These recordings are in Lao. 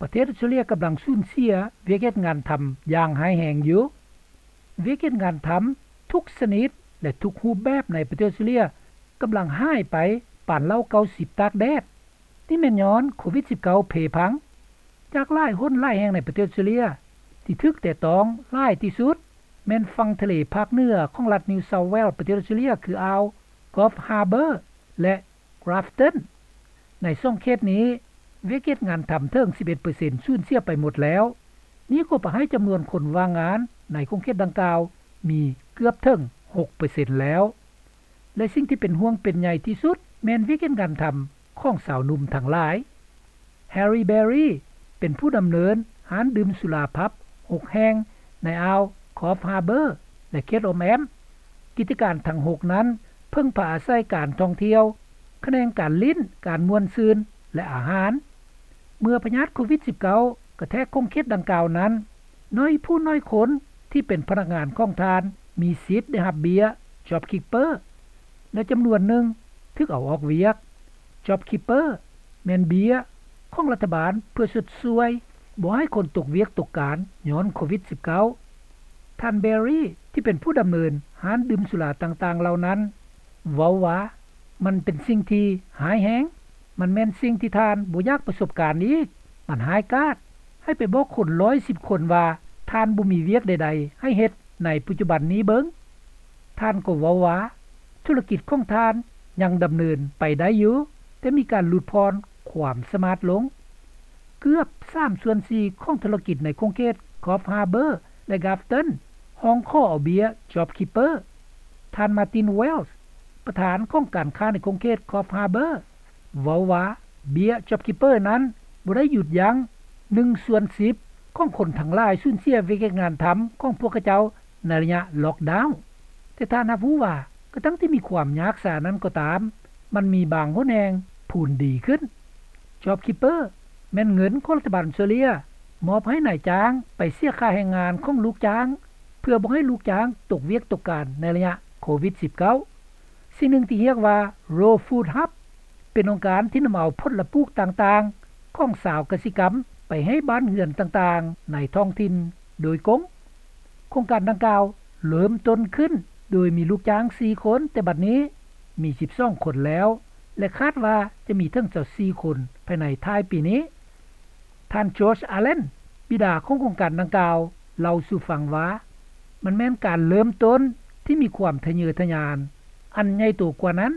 ປະເທດອອສເຕຣເລັຽກຳລັງສູນເສຍວຽກເຮັດງານທຳຢ່າງຮ້າຍແຮງຢູ່. ວຽກເຮັດງານທຳທຸກຊະນິດ ແລະ ທຸກຮູບແບບໃນປະເທດອອສເຕຣເລັຽກຳລັງຫາຍໄປປານເຫຼົ່າເກົ້າສິບຕາກແດດ. ນີ້ແມ່ນຍ້ອນໂຄວິດສິບເກົ້າເພພັງ. ຈາກຫຼາຍຫົນຫຼາຍແຫ່ງໃນປະເທດອອສເຕຣເລັຽ ທີ່ຖືກແຕະຕ້ອງຫຼາຍທີ່ສຸດ ແມ່ນຝັ່ງທະເລພາກເໜືອຂອງລັດ New South Wales ປະເທດອອສເຕຣເລັຽ ຄືອ່າວ Coffs Harbour ແລະ Grafton. ໃນສອງເຂດນີ້ ວຽກເຮັດງານທຳເຖິງສິບເອັດເປີເຊັນສູນເສຍໄປໝົດແລ້ວ. ນີ້ກໍປະໃຫ້ຈຳນວນຄົນວ່າງງານໃນຂົງເຂດດັ່ງກ່າວມີເກືອບເຖິງຫົກເປີເຊັນແລ້ວ. ແລະ ສິ່ງທີ່ເປັນຫ່ວງເປັນໃຍທີ່ສຸດແມ່ນວຽກເຮັດງານທຳຂອງຊາວໜຸ່ມທັງຫຼາຍ. Harry Berry ເປັນຜູ້ດຳເນີນຮ້ານດື່ມສຸລາ pub ຫົກແຫ່ງໃນອ່າວ Coffs Harbour ແລະ ເຂດອ້ອມແອ້ມ. ກິດຈະການທັງຫົກນັ້ນເພິ່ງພາອາໄສການທ່ອງທ່ຽວ, ຂະແໜງການຫຼິ້ນ, ການມ່ວນຊື່ນ ແລະ ອາຫານ. ເມື່ອພະຍາດໂຄວິດສິບເກົ້າກະແທກຂົງເຂດດັ່ງກ່າວນັ້ນ, ໜ້ອຍຜູ້ໜ້ອຍຄົນທີ່ເປັນພະນັກງານຂອງທ່ານມີສິດໄດ້ຮັບເບ້ຍ JobKeeper ແລະ ຈຳນວນໜຶ່ງຖືກເອົາອອກວຽກ. JobKeeper ແມ່ນເບ້ຍຂອງລັດຖະບານເພື່ອຊົດຊ່ວຍບໍ່ໃຫ້ຄົນຕົກວຽກຕົກການຍ້ອນໂຄວິດສິບເກົ້າ. ທ່ານ Berry ທີ່ເປັນຜູ້ດຳເນີນຮ້ານດື່ມສຸລາຕ່າງໆເຫຼົ່ານັ້ນ ເວົ້າວ່າ ມັນເປັນສິ່ງທີ່ຮ້າຍແຮງ. ມັນແມ່ນສິ່ງທີ່ທ່ານບໍ່ຢາກປະສົບການອີກ. ມັນຮ້າຍກາດ. ໃຫ້ໄປບອກຄົນຮ້ອຍສິບຄົນວ່າທ່ານບໍ່ມີວຽກໃດໆໃຫ້ເຮັດໃນປັດຈຸບັນນີ້ເບິ່ງ. ທ່ານກໍເວົ້າວ່າ ທຸລະກິດຂອງທ່ານຍັງດຳເນີນໄປໄດ້ຢູ່, ແຕ່ມີການຫຼຸດຜ່ອນຄວາມສາມາດລົງ. ເກືອບສາມສ່ວນສີ່ຂອງທຸລະກິດໃນຂົງເຂດ Coffs Harbour ແລະ Grafton ຮ້ອງຂໍເອົາເບ້ຍ JobKeeper. ທ່ານ Martin Wells ປະທານຂອງການຄ້າໃນຂົງເຂດ Coffs Harbour ເວົ້າວ່າ ເບ້ຍ JobKeeper ນັ້ນບໍ່ໄດ້ຢຸດຢັ້ງໜຶ່ງສ່ວນສິບຂອງຄົນທັງຫຼາຍສູນເສຍວຽກເຮັດງານທຳຂອງພວກເຂົາເຈົ້າໃນໄລຍະ lockdown. ແຕ່ທ່ານຮັບຮູ້ວ່າ ກະທັ່ງທີ່ມີຄວາມຍາກສານັ້ນກໍຕາມ, ມັນມີບາງຫົນແຫ່ງພູນດີຂຶ້ນ. JobKeeper ແມ່ນເງິນຂອງລັດຖະບານອອສເຕຣເລັຽມອບໃຫ້ນາຍຈ້າງໄປເສຍຄ່າແຮງງານຂອງລູກຈ້າງ ເພື່ອບໍ່ໃຫ້ລູກຈ້າງຕົກວຽກຕົກການໃນໄລຍະໂຄວິດສິບເກົ້າ. ສິ່ງໜຶ່ງທີ່ຮຽກວ່າ Raw Food Hub ເປັນອົງການທີ່ນຳເອົາຜົນລະປູກຕ່າງໆຂອງຊາວກະສິກຳໄປໃຫ້ບ້ານເຮືອນຕ່າງໆໃນທ້ອງຖິ່ນໂດຍກົງ. ໂຄງການດັ່ງກ່າວເລີ່ມຕົ້ນຂຶ້ນໂດຍມີລູກຈ້າງສີ່ຄົນ, ແຕ່ບັດນີ້ມີສິບສອງຄົນແລ້ວ ແລະ ຄາດວ່າຈະມີເຖິງຊາວສີ່ຄົນພາຍໃນທ້າຍປີນີ້. ທ່ານ George Allen ບິດາຂອງໂຄງການດັ່ງກ່າວ ເລົ່າສູ່ຟັງວ່າ ມັນແມ່ນການເລີ່ມຕົ້ນທີ່ມີຄວາມທະເຍີທະຍານອັນໃຫຍ່ໂຕກວ່ານັ້ນ.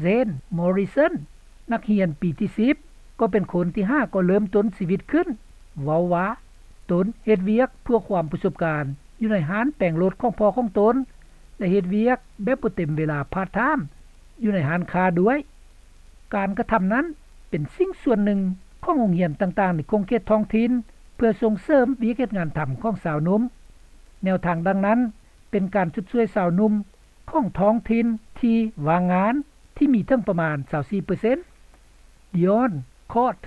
Zane Morrison ນັກຮຽນປີທີສິບ ກໍເປັນຄົນທີ່ຫາກໍເລີ່ມຕົ້ນຊີວິດຂຶ້ນ ເວົ້າວ່າ ຕົນເຮັດວຽກເພື່ອຄວາມປະສົບການຢູ່ໃນຮ້ານແປງລົດຂອງພໍ່ຂອງຕົນ ແລະ ເຮັດວຽກແບບບໍ່ເຕັມເວລາ part time ຢູ່ໃນຮ້ານຄ້າດ້ວຍ. ການກະທຳນັ້ນເປັນສິ່ງສ່ວນໜຶ່ງຂອງໂຮງຮຽນຕ່າງໆໃນຂົງເຂດທ້ອງຖິ່ນ ເພື່ອສົ່ງເສີມວຽກເຮັດງານທຳຂອງຊາວໜຸ່ມ. ແນວທາງດັ່ງນັ້ນເປັນການຊົດຊ່ວຍຊາວໜຸ່ມຂອງທ້ອງຖິ່ນທີ່ວ່າງງານ ທີ່ມີເຖິງປະມານຊາວສີ່ເປີເຊັນ. Dion Court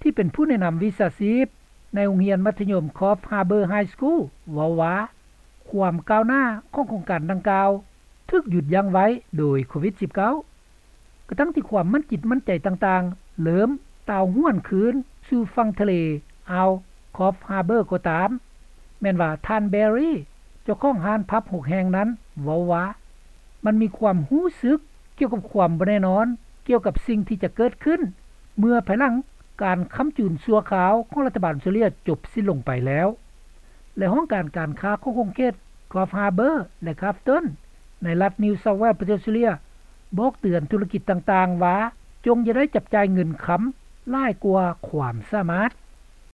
ທີ່ເປັນຜູ້ແນະນຳວິຊາຊີບໃນໂຮງຮຽນມັດທະຍົມ Coffs Harbour High School ເວົ້າວ່າ ຄວາມກ້າວໜ້າຂອງໂຄງການດັ່ງກ່າວຖືກຢຸດຢັ້ງໄວ້ໂດຍໂຄວິດສິບເກົ້າ ກະທັ່ງທີ່ຄວາມໝັ້ນຈິດໝັ້ນໃຈຕ່າງໆເລີ່ມຕ່າວຫວນຄືນສູ່ຝັ່ງທະເລອ່າວ Coffs Harbour ກໍຕາມ. ແມ່ນວ່າທ່ານ Berry ເຈົ້າຂອງຮ້ານ pub ຫົກແຫ່ງນັ້ນເວົ້າວ່າ ມັນມີຄວາມຮູ້ສຶກກ່ຽວກັບຄວາມບໍ່ແນ່ນອນ ກ່ຽວກັບສິ່ງທີ່ຈະເກີດຂຶ້ນ ເມື່ອພາຍຫຼັງການຄ້ຳຈູນຊົ່ວຄາວຂອງລັດຖະບານອອສເຕຣເລັຽຈົບສິ້ນລົງໄປແລ້ວ ແລະ ຫ້ອງການການຄ້າຂອງຂົງເຂດ Coffs Harbour ແລະ Grafton ໃນລັດ New South Wales ປະເທດອອສເຕຣເລັຽ ບອກເຕືອນທຸລະກິດຕ່າງໆວ່າ ຈົ່ງຢ່າໄດ້ຈັບຈ່າຍເງິນຄຳຫຼາຍກວ່າຄວາມສາມາດ.